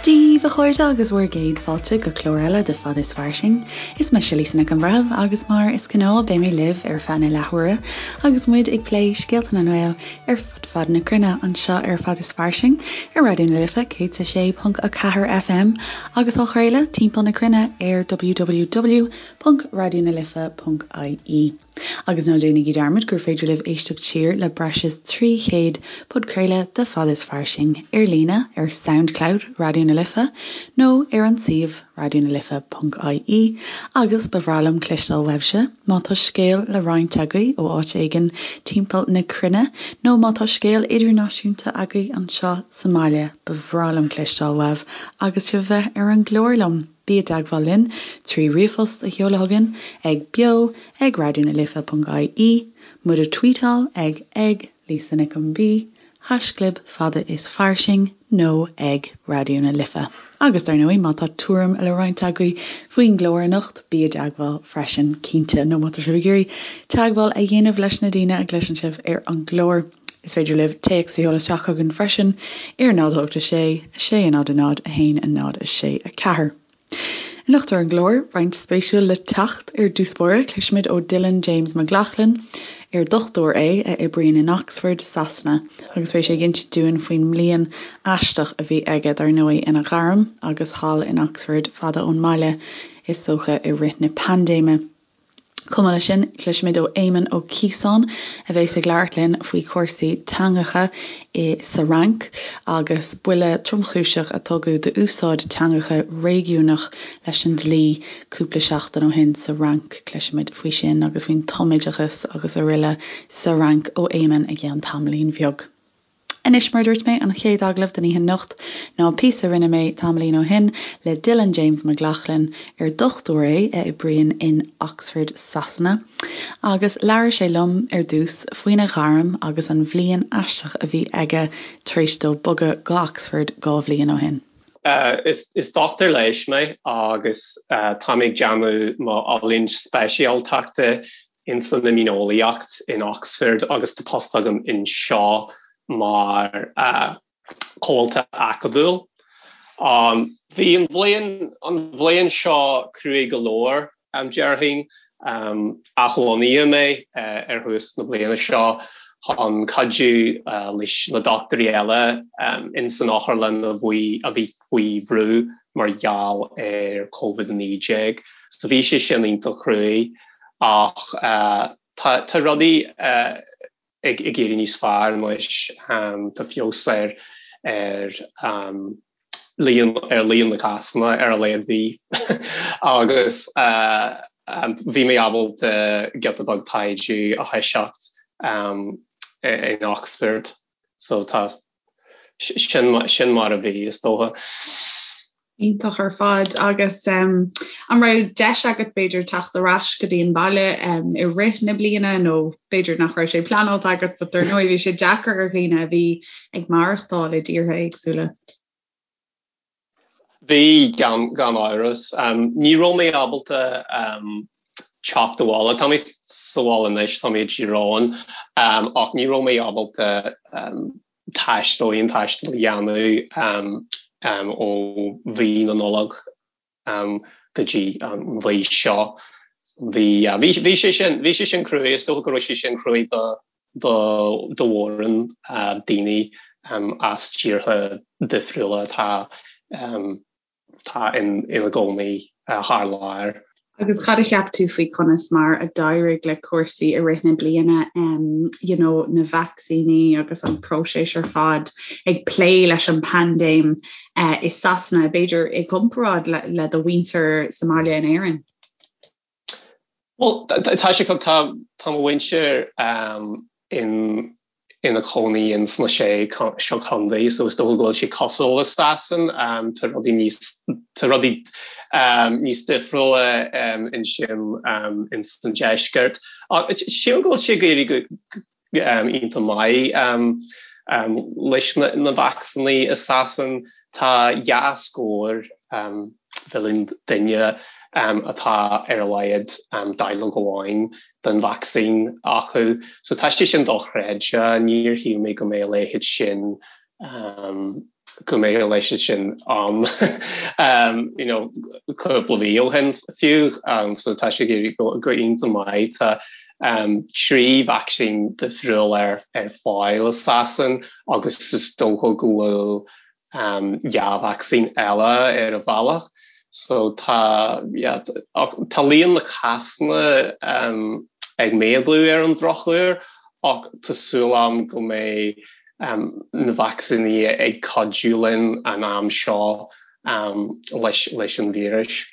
Dia daoibh, a chairde, agus bhur gcéad fáilte go clár eile de Fad is Fairsing. Is mise Lisa Nic an Bhreithimh agus mar is gnáth beidh mé libh ar feadh na leathuaire agus muid ag plé scéalta na nGael ar fud fad na cruinne anseo ar Fad is Fairsing ar Raidió na Life 106.4 FM agus á chraoladh timpeall na cruinne ar www.raidionalife.ie. Agus ná déanaigí dearmad gur féidir libh éisteacht siar le breis is 300 podchraoladh de Fad is Fairsing ar líne ar Soundcloud Raidió na Life nó ar an suíomh raidionalife.ie agus ba bhreá liom cloisteáil uaibhse má tá scéal le roinnt agaibh ó áit éigin timpeall na cruinne nó má tá scéal idirnáisiúnta agaibh anseo sa mbaile ba bhreá liom cloisteáil uaibh agus sibh a bheith ar an gclár liom. Bí i dteagmháil linn trí ríomhphost a sheoladh chugainn ag beo ag raidionalife.ie, muid a tweetáil ag ag Lisa Nic an B, haischlib fada is fairsing nó ag Raidió na Life. Agus dar ndóigh má tá tuairim le roinnt agaibh faoin gclár anocht, bí i dteagmháil freisin, cinnte, nó má tá sibh ag iarraidh teagmháil a dhéanamh leis na daoine a gcloiseann sibh ar an gclár. Is féidir libh téacs a sheoladh isteach chugainn freisin ar 0 8 6 6 0 0 1 0 6 4. Anocht ar an gclár, roinnt spéisiúil le teacht. Ar dtús báire, cloisfimid ó Dylan James McLaughlin, ar dochtúir é a oibríonn in Oxford, Sasana, agus beidh sé ag insint dúinn faoin mbliain aisteach a bhí aige, dar ndóigh, ina ghairm agus thall in Oxford, fada ón mbaile, is dócha, i rith na paindéime. Chomh maith leis sin, cloisfimid ó Éamonn Ó Ciosáin, a bheas ag labhairt linn faoi chúrsaí teangacha i sa Fhrainc agus buille tromchúiseach a tugadh d'úsáid teangacha réigiúnach leis an dlí cúpla seachtain ó shin sa Fhrainc. Cloisfimid faoi sin agus faoin tumoideachas agus aroile sa Fhrainc ó Éamonn i gceann tamaillín bheag. Anois, mar a dúirt mé, an chéad agallamh don oíche anocht ná píosa a rinne mé tamaillín ó shin le Dylan James McLaughlin, ar dochtúir é a oibríonn in Oxford, Sasana, agus labhair sé liom ar dtús faoina ghairm agus an bhliain aisteach a bhí aige tar éis dó bogadh go Oxford 2 bhliain ó shin. Is dochtúir leighis mé agus tá mé ag déanamh mo oiliúint speisialtachta ins an imdhíoneolaíocht in Oxford agus tá post agam anseo mar chomhalta acadúil. Bhí an bhliain an bhliain seo cruaidh go leor, déarfainn. Athlonnaíodh mé ar thús na bliana seo chun cuidiú leis na dochtúirí eile ins an otharlann a bhí a bhí faoi bhrú mar gheall ar Covid-19. So bhí sé sin iontach cruaidh. Ach tá tá rudaí ag ag éirí níos fearr anois. Tá feabhas ar ar líon ar líon na cásanna ar a laghad bhí agus bhí mé ábalta giota beag taighde a thoiseacht in Oxford. So tá sin sin mar a bhí is dócha. Iontach ar fad agus an raibh deis agat b'fhéidir teacht ar ais go dtí an baile i rith na bliana nó b'fhéidir nach raibh sé pleanáilte agat but dar ndóigh bhí sé deacair ar dhaoine a bhí ag maireachtáil i dtíortha éagsúla. Bhí, gan gan amhras. Ní raibh mé ábalta teacht abhaile. Tá mé sa bhaile anois, tá mé i dTír Eoghain, ach ní raibh mé ábalta taisteal, aon taisteal a dhéanamh ó mhí na Nollag go dtí an mhí seo. Bhí, bhí sé sin, bhí sé sin cruaidh, is dócha go raibh sé sin cruaidh do do do mhórán daoine as tíortha difriúla atá atá ina gcónaí thar lear. Agus cad a cheap tú faoi conas mar a d'éirigh le cúrsaí i rith na bliana, you know, na vacsaíní agus an próiseas ar fad ag plé leis an bpaindéim i Sasana, b'fhéidir i gcomparáid le, le do mhuintir sa mbaile in Éirinn? Bhuel, tá sé, tá tá mo mhuintir in ina cónaí in sna sé seo contae, so is dócha go bhfuil sé cosúil le Sasain, tá rudaí níos tá rudaí níos difriúla ansin in san deisceart. Sílim go bhfuil sé ag éirí go iontach maith leis na vacsaíní i Sasain. Tá dhá scór mhilliún duine atá ar a laghad dáileog amháin den vacsaín acu. So tá sé sin dochreidte. Níor shíl mé go mbeadh a leithéid sin. go mbeadh a leithéid sin ann you know cúpla mí ó shin fiú so tá sé ag éirí go iontach maith. Tá 3 vacsaín difriúil ar ar fáil i Sasain agus is dócha go bhfuil 2 vacsaín eile ar a bhealach. So tá yeah tá líon na cásanna ag méadú ar an drochuair ach tá súil agam go mbeidh na vacsaíní ag cuidiú linn an am seo leis an víreas.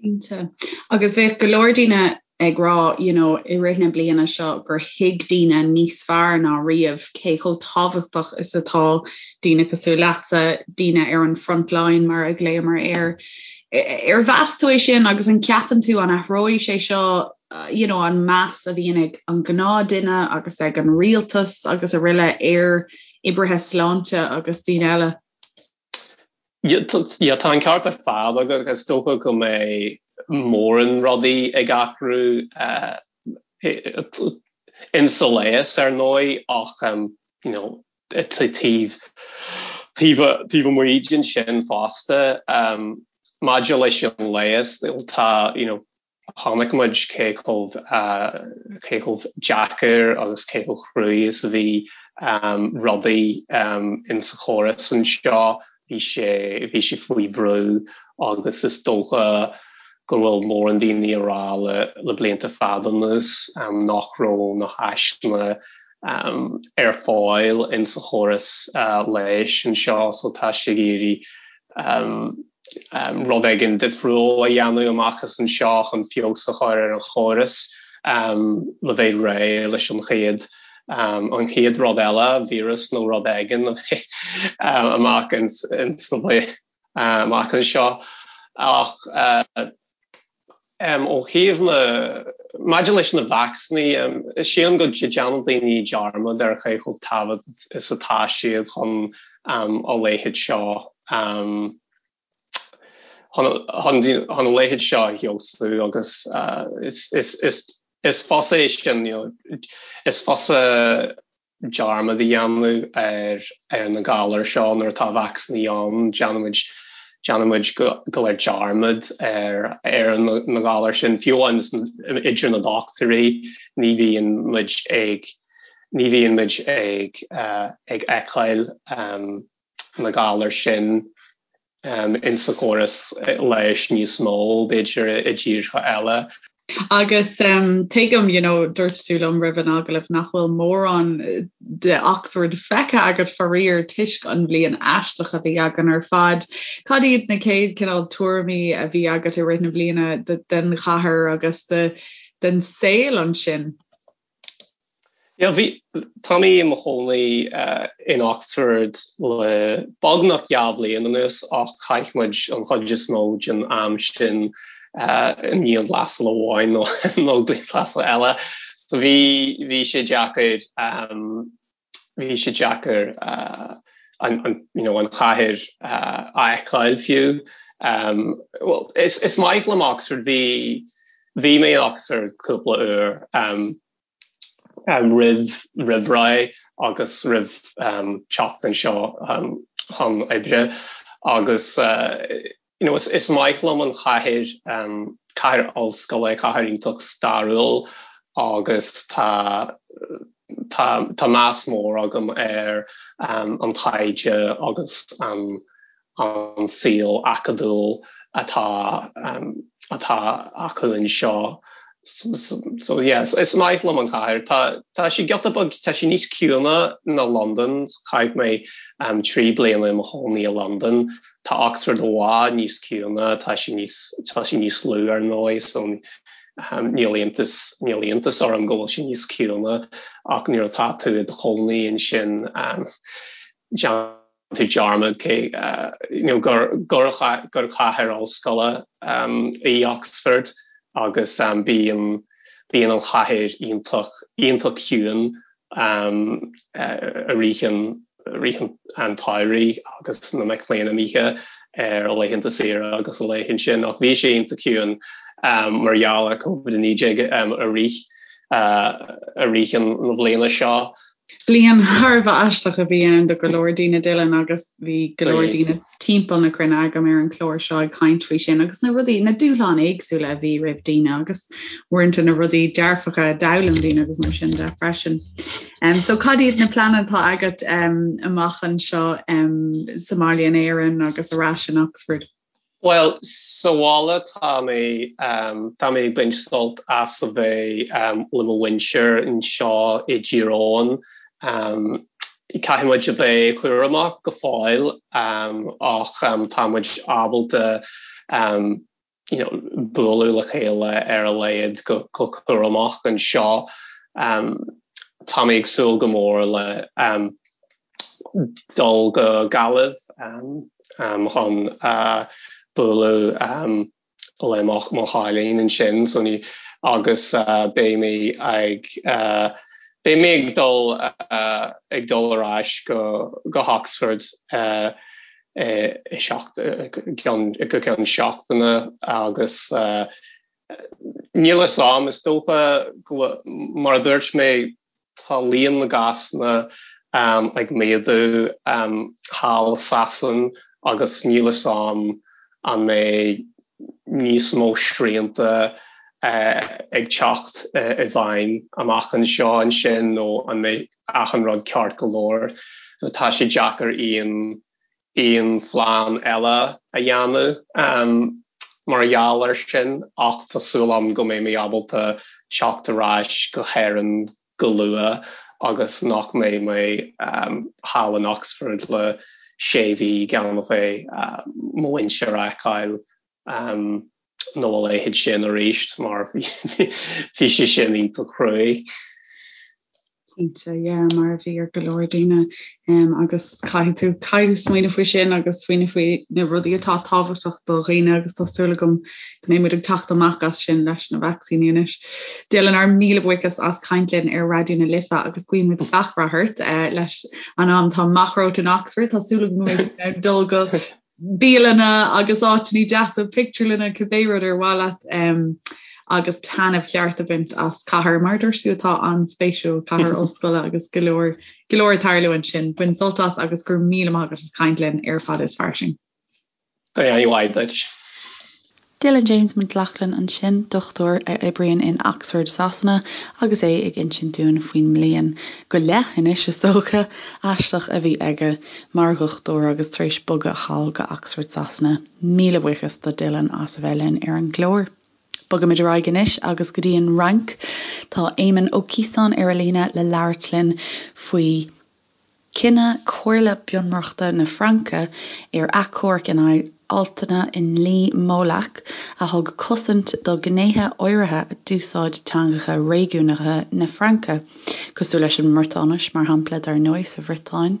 Cinnte. Agus bheadh go leor daoine ag rá you know, i rith na bliana seo gur thuig daoine níos fearr ná riamh cé chomh tábhachtach is atá daoine cosúil leatsa, daoine ar an front line mar a ghlaomar air. Ar mheas tú é sin agus an ceapann tú an athróidh sé seo you know, an meas a bhíonn ag an gnáthduine agus ag an rialtas agus araile ar oibrithe sláinte agus daoine eile. Yeah, tá an ceart ar fad agat. Is dócha go mbeidh mórán rudaí ag athrú uh, insa leigheas ar ndóigh ach um, you know, taobh taobh amuigh den sin fosta. Um, maidir leis an leigheas, tá you know, Chonaic muid cé chomh cé chomh deacair agus cé chomh cruaidh is a bhí rudaí insa chóras anseo. Bhí sé bhí sé faoi bhrú agus is dócha go bhfuil mórán daoine ag rá le le blianta fada anuas nach raibh na háiseanna ar fáil insa chóras leighis anseo so tá sé ag iarraidh rud éigin difriúil a dhéanamh amach as anseo chun feabhas a chur ar an chóras le bheith réidh leis an chéad an chéad rud eile, víreas nó rud éigin amach amach anseo. Ach Ó thaobh na, maidir leis na vacsaíní, sílim go déanann daoine dearmad ar cé chomh tábhachtach is atá siad chun a leithéid seo, chun a leithéid seo a fheabhsú agus is fusa é sin, you know, is fusa dearmad a dhéanamh ar ar na galair seo nuair atá vacsaíní ann. Déanaimid déanaimid go go léir dearmad ar ar na galair sin, fiú amháin idir na dochtúirí, ní bhíonn muid ag ní bhíonn muid ag ag fheiceáil na galair sin insa chóras leighis níos mó, b'fhéidir, i dtíortha eile. Agus tuigim, you know, dúirt tú liom roimh an agallamh nach bhfuil mórán de Oxford feicthe agat faraor toisc an bhliain aisteach a bhí againn ar fad. Cad iad na chéad cineál tuairimí a bhí agat i rith na bliana den chathair agus den saol ansin? Yeah, bhí, tá mé i mo chónaí in Oxford le beagnach 2 bhliain anuas ach chaith muid an chuid is mó den am sin i ndianghlasáil amháin nó nó dianghlasáil eile. So bhí, bhí sé deacair, bhí sé deacair an, an, you know, an chathair a fheiceáil fiú. Well, is, is maith liom Oxford, bhí, bhí mé in Oxford cúpla uair. Roimh roimh ré agus roimh teacht anseo chun oibre agus you know is maith liom an chathair, cathair ollscoile, cathair iontach stairiúil agus tá tá tá meas mór agam ar an taighde agus an an saol acadúil atá atá acu anseo. So yeah, is maith liom an chathair. Tá tá sé giota beag, tá sé níos ciúine ná Londain. Chaith mé 3 bliana i mo chónaí i Londain. Tá Oxford i bhfad níos ciúine, tá sé níos tá sé níos lú ar ndóigh, so níl iontas níl iontas orm go bhfuil sé níos ciúine ach nuair atá tú i do chónaí ansin déanann tú dearmad cé you know gur gur gur cathair ollscoile í Oxford agus bíonn bíonn an chathair iontach iontach ciúin i rith an rith an tsamhraidh agus na mic léinn imithe ar laethanta saoire agus a leithéid sin ach bhí sé iontach ciúin mar gheall ar Covid-19 i rith i rith an na bliana seo. Bliain thar a bheith aisteach a bhí ann do go leor daoine Dylan agus bhí go leor daoine timpeall na cruinne agam ar an chlár seo ag caint faoi sin agus na rudaí, na dúshláin éagsúla a bhí roimh daoine agus uaireanta na rudaí dearfacha a d'fhoghlaim daoine agus mar sin de freisin. Um, so cad iad na pleananna atá agat um, amach anseo um, sa mbaile in Éirinn agus ar ais in Oxford? Bhuel, sa bhaile tá mé, tá mé ag baint sult as a bheith le mo mhuintir anseo i dTír Eoghain. Caithfidh muid a bheith cúramach go fóill ach tá muid ábalta you know bualadh le chéile ar a laghad go cúramach anseo. Tá mé ag súil go mór le dul go Gaillimh chun bualadh le mo chailín ansin so ní agus beidh mé ag beidh mé ag dul ag dul ar ais go go hOxford i seacht go ceann seachtaine agus níl a fhios a'm is dócha go mar a dúirt mé Tá líon na gcásanna ag méadú thall i Sasain agus níl a fhios a'm an mbeidh níos mó srianta ag teacht i bhfeidhm amach anseo ansin nó an mbeidh achan rud ceart go leor. So tá sé deacair aon aon phlean eile a dhéanamh mar gheall air sin ach tá súil agam go mbeidh mé ábalta teacht ar ais go hÉirinn go luath agus nach mbeidh mé thall in Oxford le sé mhí gan a bheith mo mhuintir a fheiceáil. nó a leithéid sin arís mar bhí sé sin iontach cruaidh. Cinnte, yeah, mar a bhí ar go leor daoine um, agus caithfidh tú caithfidh tú smaoineamh faoi sin agus smaoineamh faoi na rudaí atá tábhachtach do dhaoine agus tá súil agam go mbeidh muid ag teacht amach as sin leis na vacsaíní anois. Dylan ár míle buíochas as caint linn ar Raidió na Life agus guímid gach rath ort uh, leis an am atá amach romhat in Oxford tá súil agam go mbeidh tú in ann dul go bialanna agus áiteanna deasa, pictiúrlanna, cibé rud ar mhaith leat um, agus taitneamh ceart a bhaint as cathair mar a dúirt tú atá an-spéisiúil, cathair ollscoile agus go leor go leor ag tarlú ansin. Bain sult as agus go raibh míle maith agat as caint linn ar Fada is Fairsing. Go raibh maith duit. Dylan James McLaughlin ansin, dochtúir a oibríonn in Oxford, Sasana, agus é ag insint dúinn faoin mbliain go leith anois, is dócha, aisteach a bhí aige mar dhochtúir agus tar éis bogadh thall go Oxford, Sasana. Míle buíochas do Dylan as a bheith linn ar an gclár. Bogaimid ar aghaidh anois agus go dtí an Fhrainc. Tá Éamonn Ó Ciosáin ar an líne le labhairt linn faoi Cinneadh Comhairle Bunreachta na Fraince ar achomharc in aghaidh altanna i ndlí Molac a thug cosaint do ghnéithe áirithe d'úsáid teangacha réigiúnacha na Fraince, cosúil leis an mBriotáinis, mar shampla, dar ndóigh, sa Bhriotáin.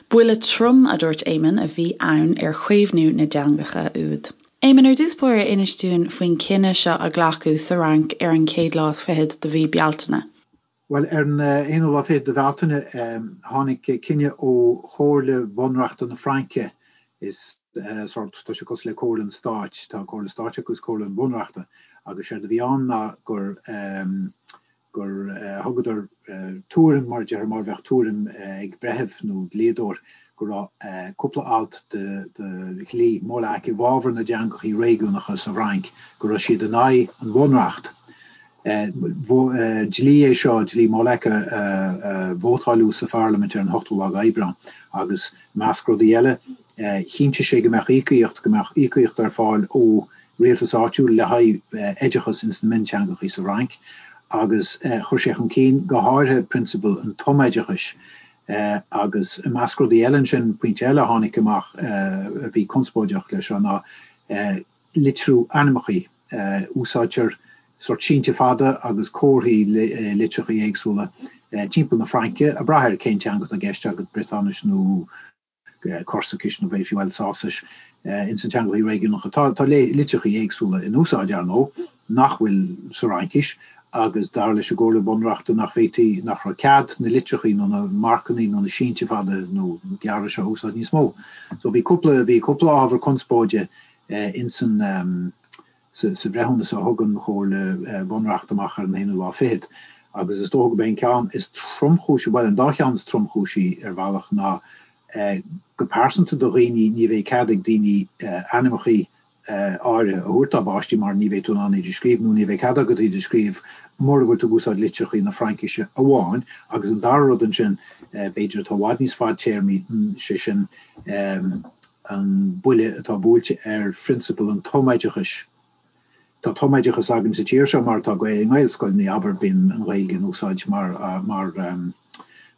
Buille trom, a dúirt Éamonn, a bhí ann ar chaomhnú na dteangacha úd. Éamonn, ar dtús báire, inis dúinn faoin chinneadh seo a glacadh sa Fhrainc ar an chéad lá is fichead de mhí Bealtaine. Bhuel, ar an aonú lá fichead de Bhealtaine, tháinig cinneadh ó Chomhairle Bhunreachta na Fraince, is sórt, tá sé cosúil le Comhairle an Stáit, tá Comhairle Stáit acu agus Comhairle an Bhunreachta, agus séard a bhí ann ná gur, gur thugadar tuairim, mar a déarfá, mar a bheadh tuairim ag breitheamh nó dlíodóir, go raibh cúpla alt de dhlí Molac i bhfabhar na dteangachaí réigiúnacha sa Fhrainc, go raibh siad in aghaidh an Bhunreacht. Dlí é seo, dlí Molac, a vótáileadh sa pharlaimint ar an ochtú lá d'Aibreán agus, i measc rudaí eile, chinntigh sé go mbeadh íocaíocht, go mbeadh íocaíocht ar fáil ó rialtas áitiúil le haghaidh oideachas ins na mionteangachaí sa Fhrainc agus chuir sé chun cinn go háirithe prionsabal an tumoideachais agus, i measc rudaí eile ansin, pointe eile a tháinig amach a bhí conspóideach leis seo ná litriú ainmneachaí. Úsáidtear sórt sínte fada agus comharthaí litreachaí éagsúla timpeall na Fraince, ag brath ar cén teanga atá i gceist agat, Briotáinis nó Corsaicis nó b'fhéidir fiú Alsáisis. Ins na teangachaí réigiúnacha tá litreachaí éagsúla in úsáid, ar ndóigh, nach bhfuil sa Fhraincis agus dar leis an gComhairle Bunreachta nach bhféadfaí, nach raibh cead na litreachaí nó na marcannaí nó na sínte fada nó gearra seo a úsáid níos mó. So bhí cúpla, bhí cúpla ábhar conspóide ins an, sa bhreithiúnas a thug an Chomhairle Bhunreachta amach ar an aonú lá fichead. Agus is dócha gurb é an ceann is tromchúisí, bhuel, an dá cheann is tromchúisí ar bhealach ná go pearsanta do dhaoine, ní bheidh cead ag daoine ainmneachaí áirithe a thabhairt dá bpáistí mar ní bheidh tú in ann iad a scríobh nó ní bheidh cead agat iad a scríobh mura bhfuil tú ag úsáid litreachaí na Fraincise amháin. Agus an dara rud ansin, b'fhéidir, atá i bhfad níos fadtéarmaí, sé sin an buille atá buailte ar phrionsabal an tumoideachais. Tá tumoideachas againn sa tír seo mar atá i nGaelscoileanna, abair, bíonn an Ghaeilge in úsáid mar, mar,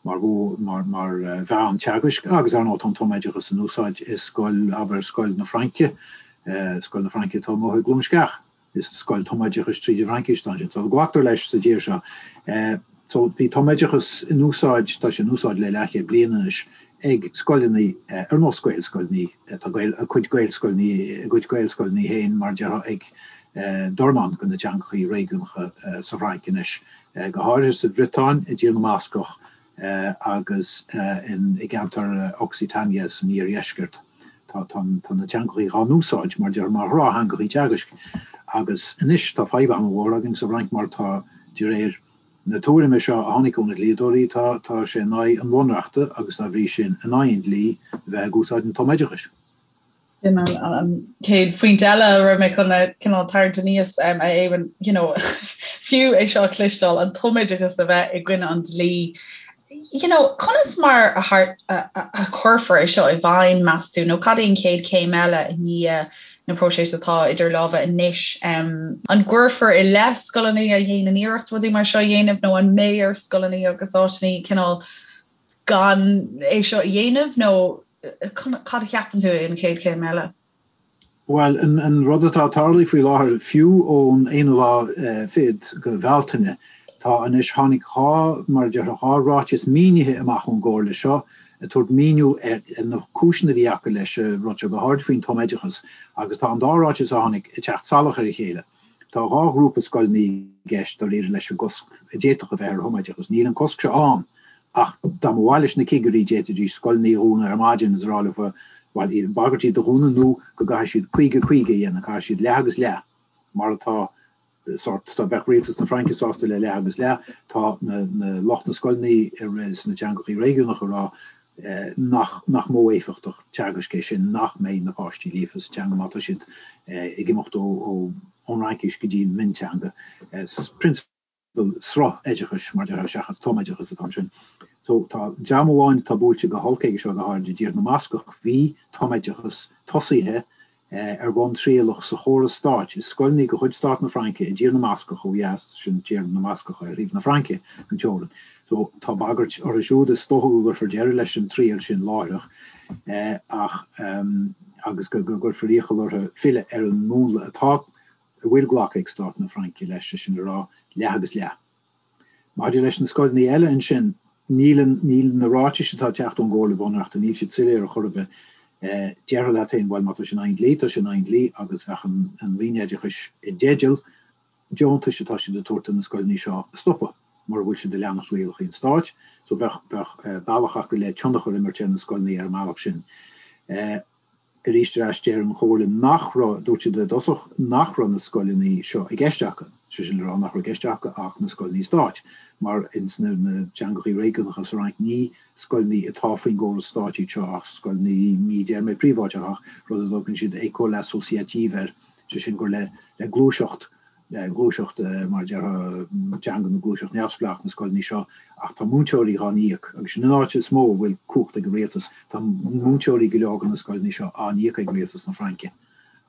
mar mhodh, mar mheán teagaisc agus, ar ndóigh, tá an tumoideachas in úsáid i scoil, abair, Scoil na Fraince, Scoil na Fraince atá amuigh i gCluain Sceach. Is scoil tumoideachais tríd an bhFraincis atá ansin. So glactar leis sa tír seo. So bhí tumoideachas in úsáid, tá sé in úsáid le leathchéad bliain anois ag scoileanna ar nós Gaelscoileanna, tá a cuid Gaelscoileanna, a gcuid Gaelscoileanna féin mar a déarfá ag dornán de na teangachaí réigiúnacha sa Fhrainc anois. go háirithe sa Bhriotáin, i dTír na mBascach agus i gceantar Occitania san iardheisceart. Tá na teangachaí dhá n-úsáid mar déarfá mar ghnáth-theangachaí teagaisc. Agus anois tá fadhb an-mhór againn sa bhFrainc mar tá, de réir na tuairime seo a tháinig ó na dlíodóirí, tá tá sé in aghaidh an bhunreachta agus dá bhrí sin in aghaidh an dlí a bheith ag úsáid an tumoideachais. Sin an chéad phointe eile a raibh mé chun a cineál tarraingt aníos a Eoin, you know, fiú é seo a chloisteáil, an tumoideachas a bheith i gcoinne an dlí, you know, conas mar a a chuirfear é seo i bhfeidhm, meas tú, nó cad é an chéad chéim eile i ndiaidh na próiseas atá idir lámha anois? An gcuirfear i leith scoileanna a dhéanann iarracht rudaí mar seo a dhéanamh nó an mbeidh ar scoileanna agus áiteanna cineál gan é seo a dhéanamh nó cad a cheapann tú é an chéad chéim eile? Bhuel, an rud atá ag tarlú faoi láthair, fiú ón aonú lá fichead de Bhealtaine, tá anois, tháinig 2, mar a déarfá, 2 ráiteas mínithe amach ón gComhairle seo ag tabhairt míniú ar na cúiseanna a bhí acu leis an rud seo, go háirid faoin tumoideachas, agus tá an dá ráiteas a tháinig ag teacht salach ar a chéile. Tá 2 ghrúpa scoileanna i gceist dáiríre leis an gcosc a d'fhéadfadh a bheith ar thumoideachas. Níl an cosc seo ann ach dá mba mhaith leis na cigirí d'fhéadfaidís scoileanna a dhúnadh ar maidin is a rá leo bhuel, bagairt iad a dhúnadh nó go gcaithfidh siad 50, 50 a dhéanamh, caithfidh siad leath agus leath mar atá sórt, dá mbeadh rialtas na Fraince sásta le leath agus leath, tá na lucht na scoileanna sna teangachaí réigiúnacha ag rá nach nach modh éifeachtach teagaisc é sin, nach mbeidh na páistí líofa sa teanga má tá siad ag imeacht ó ón Fhraincis go dtí an mionteanga. Prionsabal sruth-oideachais, mar a déarfá, seachas tumoideachas atá ansin. So tá dream amháin atá buailte go holc aige seo, go háirid i dTír na mBascach, bhí tumoideachas tosaithe ar bhonn trialach sa chóras stáit i scoileanna de chuid Stát na Fraince i dTír na mBascach ó dheas, sin Tír na mBascach ar thaobh na Fraince den teorainn. So tá bagairt orthu siúd, is dócha go gcuirfear deireadh leis an triail sin láithreach ach agus go gcuirfear iachall orthu filleadh ar an múnla atá, a bhfuil glactha ag Stát na Fraince leis, sé sin le rá, leath agus leath. Maidir leis na scoileanna eile ansin, níl an, níl na ráitis atá ag teacht ón gComhairle Bhunreachta, níl siad soiléir ar chor ar bith. Déarfá leat féin, bhuel, má tá sé in aghaidh an dlí, tá sé in aghaidh an dlí agus bheadh an, an Roinn Oideachais i dteideal deontais atá siad ag tabhairt do na scoileanna seo a stopadh mura bhfuil siad ag leanacht rialacha an stáit. So bheadh, bheadh bealach acu le tionchar a imirt ar na scoileanna ar an mbealach sin. Arís ar ais, deir an Chomhairle nach raibh, dúirt siad i dtosach nach raibh na scoileanna seo i gceist acu, sé sin le rá nach raibh i gceist acu ach na scoileanna stáit, mar ins na teangachaí réigiúnacha sa Fhrainc ní scoileanna atá faoin gcóras stáit iad seo ach scoileanna, ní deir mé príobháideach ach rud a dtugann siad école associative air, sé sin gur le gluaiseacht gluaiseacht, mar a déarfá, teanga nó gluaiseacht neamhspleách na scoileanna seo ach tá múinteoirí dhá n-íoc agus sin an áit is mó a bhfuil cumhacht ag an rialtas. Tá múinteoirí go leor de na scoileanna seo á n-íoc ag rialtas na Fraince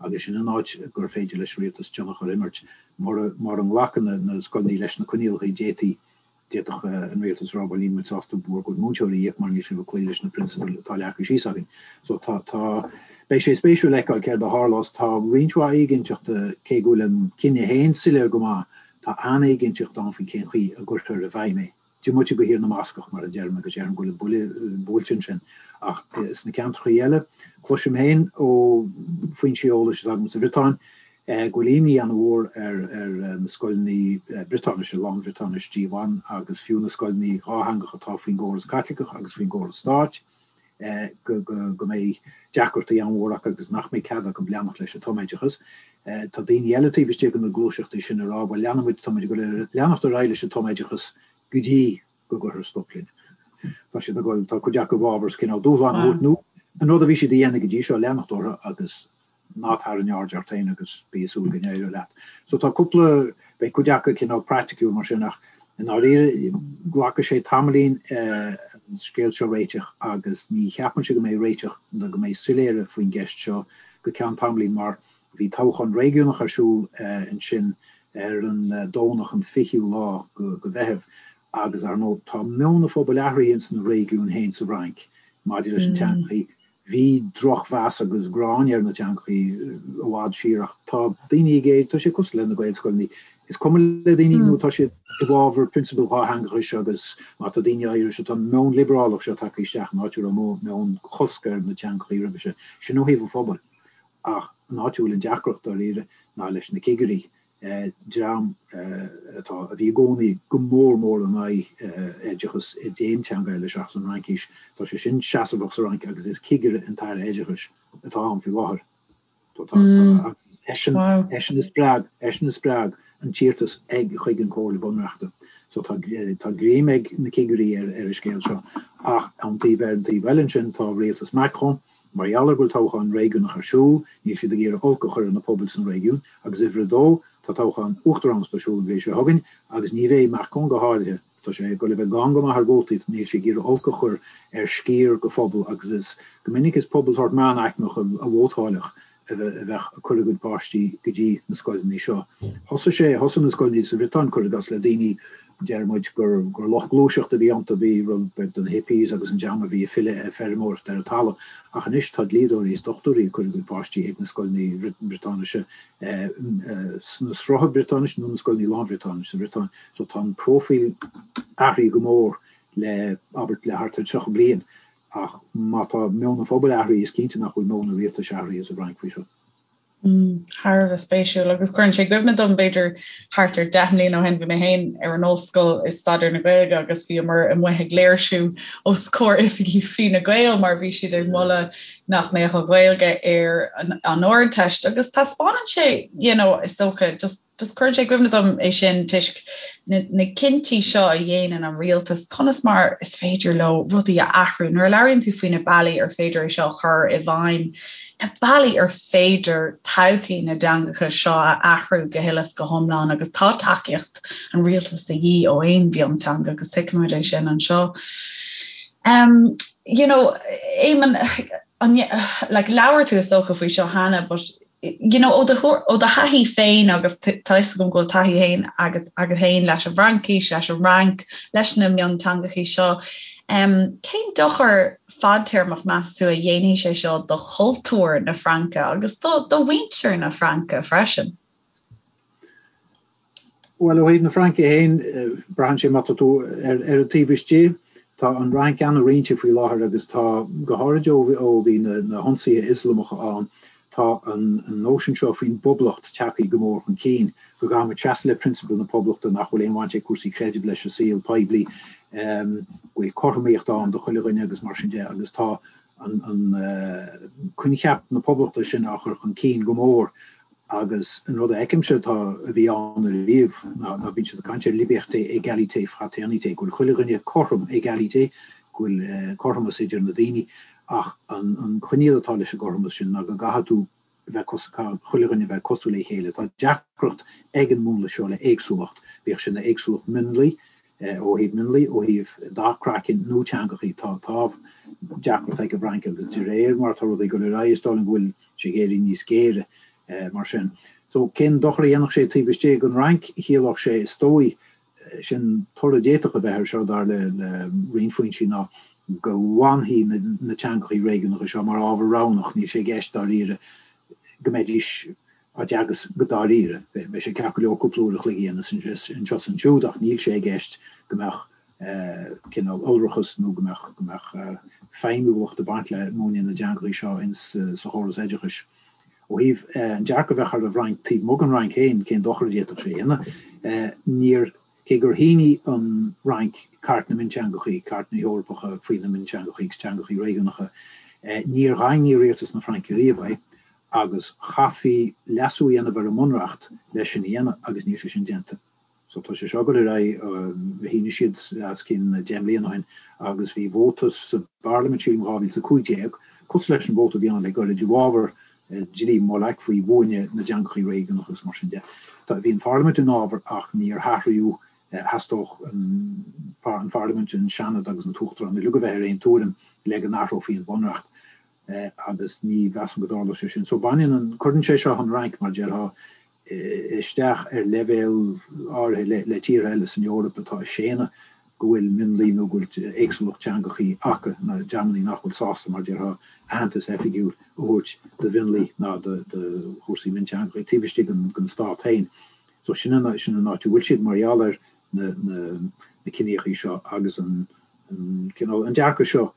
agus sin an áit gur féidir leis an rialtas tionchar a imirt. Mura nglacann na scoileanna leis na coinníollacha d'fhéadfaí D'fhéadfadh an rialtas a rá, bhuel, níl muid sásta bhur gcuid múinteoirí a íoc mar níl sibh ag cloí leis na prionsabail atá leagtha síos againn. So tá, tá, beidh sé spéisiúil fheiceáil céard a tharlós. Tá roinnt mhaith éiginnteachta, cé go bhfuil an cinneadh féin soiléir go maith, tá an-éiginnteacht ann faoi cén chaoi a gcuirfear i bhfeidhm é. Diomaite de Thír na mBascach, mar a deirim, agus déarfainn go bhfuil an buille buailte ansin. Ach sna ceantracha eile, cloisim féin ó foinsí eolais atá agam sa Bhriotáin, go bhfuil imní an-mhór ar na scoileanna Briotáinise, lán-Bhriotáinis Diwan agus fiú na scoileanna dhátheangacha atá faoin gcóras Caitliceach agus faoin gcóras stáit. go go mbeidh deacrachtaí an-mhór acu agus nach mbeidh cead acu leanacht leis an tumoideachas. Tá daoine eile taobh istigh de na gluaiseachtaí sin ag rá, bhuel leanfaidh muid, tá muid ag dul leanacht ar aghaidh leis an tumoideachas go dtí go gcuirfear stop linn. Tá siad ag dul, tá cuid acu i bhfabhar cineál dúshlán a thabhairt nó an rud a bhí siad a dhéanamh go dtí seo, leanacht orthu agus ná tarraing aird ort féin agus bí ag súil go n-éireoidh leat. So tá cúpla, beidh cuid acu cineál praiticiúil mar sin ach i ndáiríre glacfaidh sé tamaillín an scéal seo a réiteach agus ní cheapaimse go mbeidh réiteach nó go mbeidh soiléire faoin gceist seo go ceann tamaillín mar bhí toghchán réigiúnach ar siúl ansin ar an Domhnach an 20ú lá go Mheitheamh agus ar ndóigh tá meon an phobail athraithe ins na réigiúin féin sa Fhrainc maidir leis an teangachaí. Bhí drochmheas agus gráin ar na teangachaí i bhfad siar ach tá daoine ag éirí, tá sé cosúil le na Gaelscoileanna, is cuma le daoine nó tá siad i bhfabhar prionsabail dhátheangachais agus má tá daoine áirithe, tá an meon liobrálach seo tagtha isteach in áit a raibh meon chosc ar na teangachaí roimhe sin. Sin ó thaobh an phobail. Ach an áit a bhfuil an deacracht dáiríre ná leis na cigirí. dream atá, a bhí i gcónaí go mór mór in aghaidh oideachas i d'aon teanga eile seachas an Fhraincis. Tá sé sin seasmhach sa Fhrainc agus is cigire an tAire Oideachais atá ann faoi láthair. Tá, tá, agus is eisean, eisean a spreag, eisean a spreag an t-iarratas ag, chuig an Comhairle Bunreachta. So tá, tá greim ag na cigirí ar, ar an scéal seo. Ach ón taobh, ar an taobh eile ansin tá rialtas Macron, Mar gheall ar go bhfuil toghchán réigiúnach ar siúl, níl siad ag iarraidh olc a chur ar na pobail sna réigiúin, agus uimhir a dó, tá toghchán uachtaránachta ar siúl an bhliain seo chugainn, agus ní bheidh Macron go háirithe, tá sé ag dul a bheith gann go maith ar vótaí, níl sé ag iarraidh olc a chur ar sciar de phobal, agus is go minic is pobal sórt meánaicmeach a vótáilfeadh a bheadh ag cur a gcuid páistí go dtí na scoileanna seo. Thosaigh sé, thosaigh na scoileanna sa Bhriotáin, cuir i gcás, le daoine, deir muid, gur, gur lucht gluaiseachta a bhí iontu, bhí rud beag de na hippies agus an dream a bhí ag filleadh ar feirmeoireacht ar an talamh. Ach anois tá dlíodóirí is dochtúirí ag cur a gcuid páistí ag na scoileanna Briotáinise, sna srutha Briotáinise nó na scoileanna lán-Bhriotáinise sa Bhriotáin. So tá an próifíl athraithe go mór le, abair, le thart ar 30 bliain. Ach má tá meon an phobail athraithe, is cinnte nach bhfuil meon an rialtais athraithe sa bhFrainc faoi seo. Thar a bheith spéisiúil agus cuireann sé i gcuimhne dom, b'fhéidir thart ar 10 mbliana ó shin, bhí mé féin ar an ollscoil ag staidéar na Gaeilge agus bhíomar amuigh ag léirsiú os comhair oifigí Fine Gael mar bhí siad ag moladh nach mbeadh an Ghaeilge ar an Ardteist agus taispeánann sé, you know, is dócha, just Just cuireann sé i gcuimhne dom é sin toisc na na cinntí seo a dhéanann an rialtas, conas mar is féidir leo rudaí a athrú. Nuair a labhraíonn tú faoi na bealaí ar féidir é seo a chur i bhfeidhm, na bealaí ar féidir todhchaí na dteangacha seo a athrú go huile is go hiomlán agus tá tacaíocht an rialtais de dhíth ó aon mhionteanga agus tuigimid é sin anseo. Um, you know, Éamonn, an, like, labhair tú is dócha faoi seo cheana, but you know, ó do ó do thaithí féin agus tá fhios agam go bhfuil taithí féin agat agat féin leis an bhFraincis, leis an Fhrainc, leis na mionteangachaí seo, um, cén dochar fadtéarmach meas tú a dhéanfaidh sé seo do chultúr na Fraince agus do do mhuintir na Fraince freisin? Bhuel, ó thaobh na Fraince féin, braitheann sé má tá tú ar an taobh istigh. Tá an Fhrainc an-roinnte faoi láthair agus tá, go háirid ó bhí na hionsaithe Ioslamacha ann, tá an nóisean seo faoin bpoblacht tagtha go mór chun cinn, go gcaithfidh muid seasamh le prionsabail na poblachta, nach bhfuil aon bhaint ag cúrsaí creidimh leis an saol poiblí, go bhfuil cothromaíocht ann do chuile dhuine agus mar sin de agus tá an coincheap na poblachta sin á chur chun cinn go mór Agus an rud a fheicimse atá, a bhí ann ariamh, ná, ná bíonn siad ag caint ar liberté, égalité, fraternité, go bhfuil chuile dhuine cothrom, égalité, go bhfuil cothromas idir na daoine, ach an, an coinníoll atá leis an gcothromas sin ná go gcaithfidh tú a bheith cos, caithfidh chuile dhuine a bheith cosúil le chéile. Tá deacracht ag an múnla seo le éagsúlacht, bíodh sin éagsúlacht mionlaigh, ó thaobh mionlaigh, ó thaobh dath craicinn nó teangachaí, tá, tá deacracht ag an bhFrainc agus de réir mar atá rudaí ag dul ar aghaidh is dóigh liom go bhfuil sé ag éirí níos géire mar sin. So, cén dochar a dhéanfadh sé taobh istigh den Fhrainc? Chiallódh sé, is dóigh, sin toradh a d'fhéadfadh a bheith air seo, dar le roinnt foinsí, ná go bhfanfaidh na teangachaí réigiúnacha seo mar ábhar roghnach, níl sé i gceist dáiríre go mbeidís á dteagasc go dáiríre. Beidh sé ceart go leor cúpla uair a chloig a dhéanamh anseo is ansiúd ach níl sé i gceist go mbeadh cineál iolrachas nó go mbeadh go mbeadh feidhmiúlacht ag baint le múineadh na dteangachaí seo ins sa chóras oideachais. Ó thaobh an dearcadh a bheadh ar an bhFrainc taobh amuigh den Fhrainc féin, cén dochar a d'fhéadfadh sé a dhéanamh? Níor. Cé gur shínigh an Fhrainc Cairt na Mionteangachaí, Cairt na hEorpacha faoi na Mionteangachaí agus Teangachaí Réigiúnacha, níor dhaingnigh rialtas na Fraince riamh é agus chaithfí leasú a dhéanamh ar an mBunreacht leis sin a dhéanamh agus níl sé sin déanta. So tá sé seo ag dul ar aghaidh, shínigh siad os cionn 10 mbliana ó shin agus bhí vóta sa bParlaimint sílim 2015, cosúil leis an vóta a bhí ann le gairid i bhfabhar dlí Molac faoi bhuaine na dteangachaí réigiúnacha agus mar sin de. Bhí an Pharlaimint in fhabhar ach níor hathraíodh, theastódh an Pharlaimint, an Seanad agus an tUachtarán uilig a bheith ar aon tuairim le go n-athrófaí an Bunreacht agus ní mheasaim go dtarlódh sé sin. So baineann an, cuireann sé seo an Fhrainc, mar déarfá, isteach ar leibhéal áirithe le tíortha eile san Eoraip atá ag séanadh go bhfuil mionlaigh nó go bhfuil éagsúlacht teangachaí acu, na dreamanna nach bhfuil sásta, mar déarfá, aitheantas oifigiúil a thabhairt do mhionlaigh ná do chúrsaí mionteangachaí taobh istigh den stát féin. So sin an áit a bhfuil siad mar gheall ar na ciníochaí seo agus an cineál, an dearcadh seo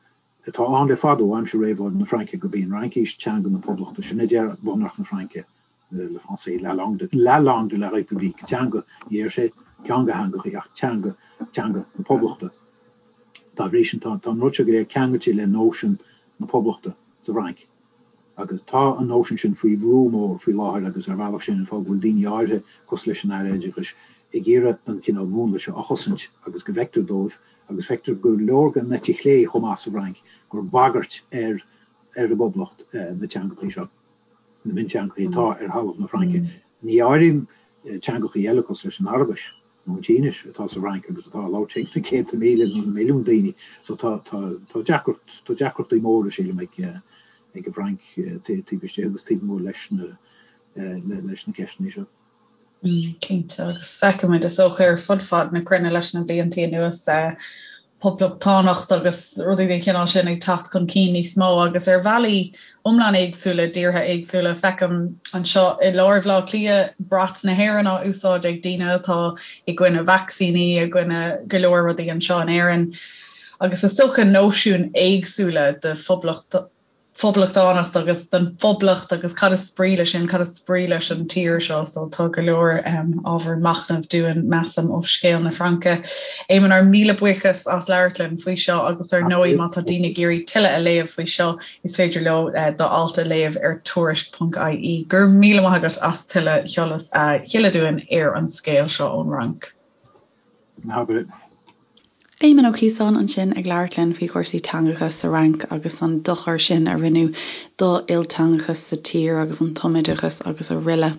atá ann le fada ó aimsir réabhlóid na Fraince gurb í an Fhraincis teanga na Poblachta. Sin a deir Bunreacht na Fraince. le français, la langue de, la langue de la République, teanga, ní deir sé ceann de theangachaí ach teanga, teanga na Poblachta. Dá bhrí sin, tá, tá an rud seo go léir ceangailte le nóisean na Poblachta sa bhFrainc. Agus tá an nóisean sin faoi bhrú mór faoi láthair agus ar bhealach sin an fáth go bhfuil daoine áirithe, cosúil leis an Aire Oideachais, ag iarraidh an cineál múnla seo a chosaint agus go bhfeictear dóibh, agus feictear go leor den eite chlé chomh maith sa bhFrainc, gur bagairt ar ar an bPoblacht na teangachaí seo. na mionteangachaí atá ar thalamh na Fraince. Ní áirím teangachaí eile cosúil leis an Araibis nó an tSínis atá sa Fhrainc agus atá á labhairt ag na céadta míle nó na milliúin daoine. So tá tá deacracht tá deacrachtaí móra sílim ag ag an bhFrainc taobh istigh agus taobh amuigh leis na leis na ceisteanna seo. Cinnte, agus feicimid is dócha ar fud fad na cruinne leis na blianta anuas poblachtánacht agus rudaí den chineál sin ag teacht chun cinn níos mó agus ar bhealaí iomlán éagsúla i dtíortha éagsúla. Feicim anseo i lár Bhaile Átha Cliath brat na hÉireann á úsáid ag daoine atá i gcoinne vacsaíní, i gcoinne go leor rudaí anseo in Éirinn. Agus is dócha nóisiúin éagsúla de phoblacht phoblachtánacht agus den phoblacht agus cad is brí leis sin, cad is brí leis an tír seo, so tá go leor ábhar machnaimh dúinn, measaim, ó scéal na Fraince. Éamonn, ár míle buíochas as labhairt linn faoi seo agus ar ndóigh má tá daoine ag iarraidh tuilleadh a léamh faoi seo, is féidir leo do alt a léamh ar tuairisc.ie. Go raibh míle maith agat as tuilleadh eolas a shileadh dúinn ar an scéal seo ón Fhrainc. Ná habair. Éamonn Ó Ciosáin ansin ag labhairt linn faoi chúrsaí teangacha sa Fhrainc agus an dochar sin a rinneadh do ilteangachas sa tír agus an tumoideachas agus aroile.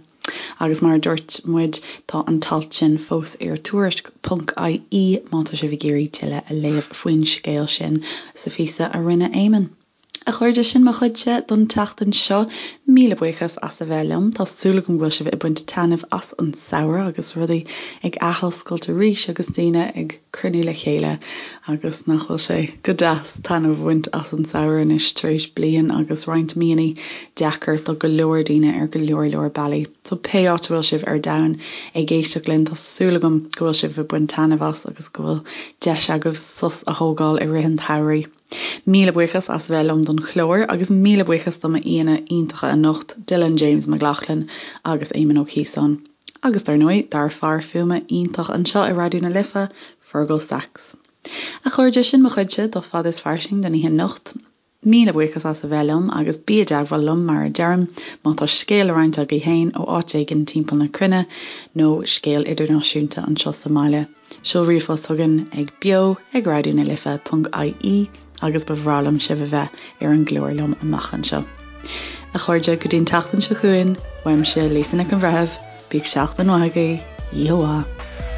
Agus mar a dúirt muid, tá an t-alt sin fós ar tuairisc ponc ie má tá sibh ag iarraidh tuilleadh a léamh faoin scéal sin sa phíosa a rinne Éamonn. A chairde, sin mo chuidse don tseachtain seo. Míle buíochas as a bheith liom. Tá súil agam go bhfuil sibh ag baint taitneamh as an samhradh agus rudaí ag athoscailt arís agus daoine ag cruinniú le chéile agus nach bhfuil sé go deas taitneamh a bhaint as an samhradh anois tar éis bliain agus roinnt míonna deacair do go leor daoine ar go leor leor bealaí. So pé áit a bhfuil sibh ar domhan ag éisteacht linn tá súil agam go bhfuil sibh ag baint taitneamh as agus go bhfuil deis agaibh sos a thógáil i rith an tsamhraidh. Míle buíochas as a bheith liom don chlár agus míle buíochas do m'aíonna iontacha anocht, Dylan James McLaughlin agus Éamonn Ó Ciosáin. Agus dar ndóigh, dár fear fuaime iontach anseo i Raidió na Life, Fergal Sachs. A chairde, sin mo chuidse do Fada is Fairsing don oíche anocht. Míle buíochas as a bheith liom agus bí i dteagmháil liom, mar a deirim, má tá scéal le roinnt agaibh féin ó áit éigin timpeall na cruinne nó scéal idirnáisiúnta anseo sa mbaile. Seol ríomhphost chugainn ag beo ag raidió na life ponc ie agus ba bhreá liom sibh a bheith ar an gclár liom amach anseo. A chairde, go dtí an tseachtain seo chugainn, uaimse Lisa Nic an Bhreithimh, bíodh seachtain mhaith agaibh, oíche mhaith.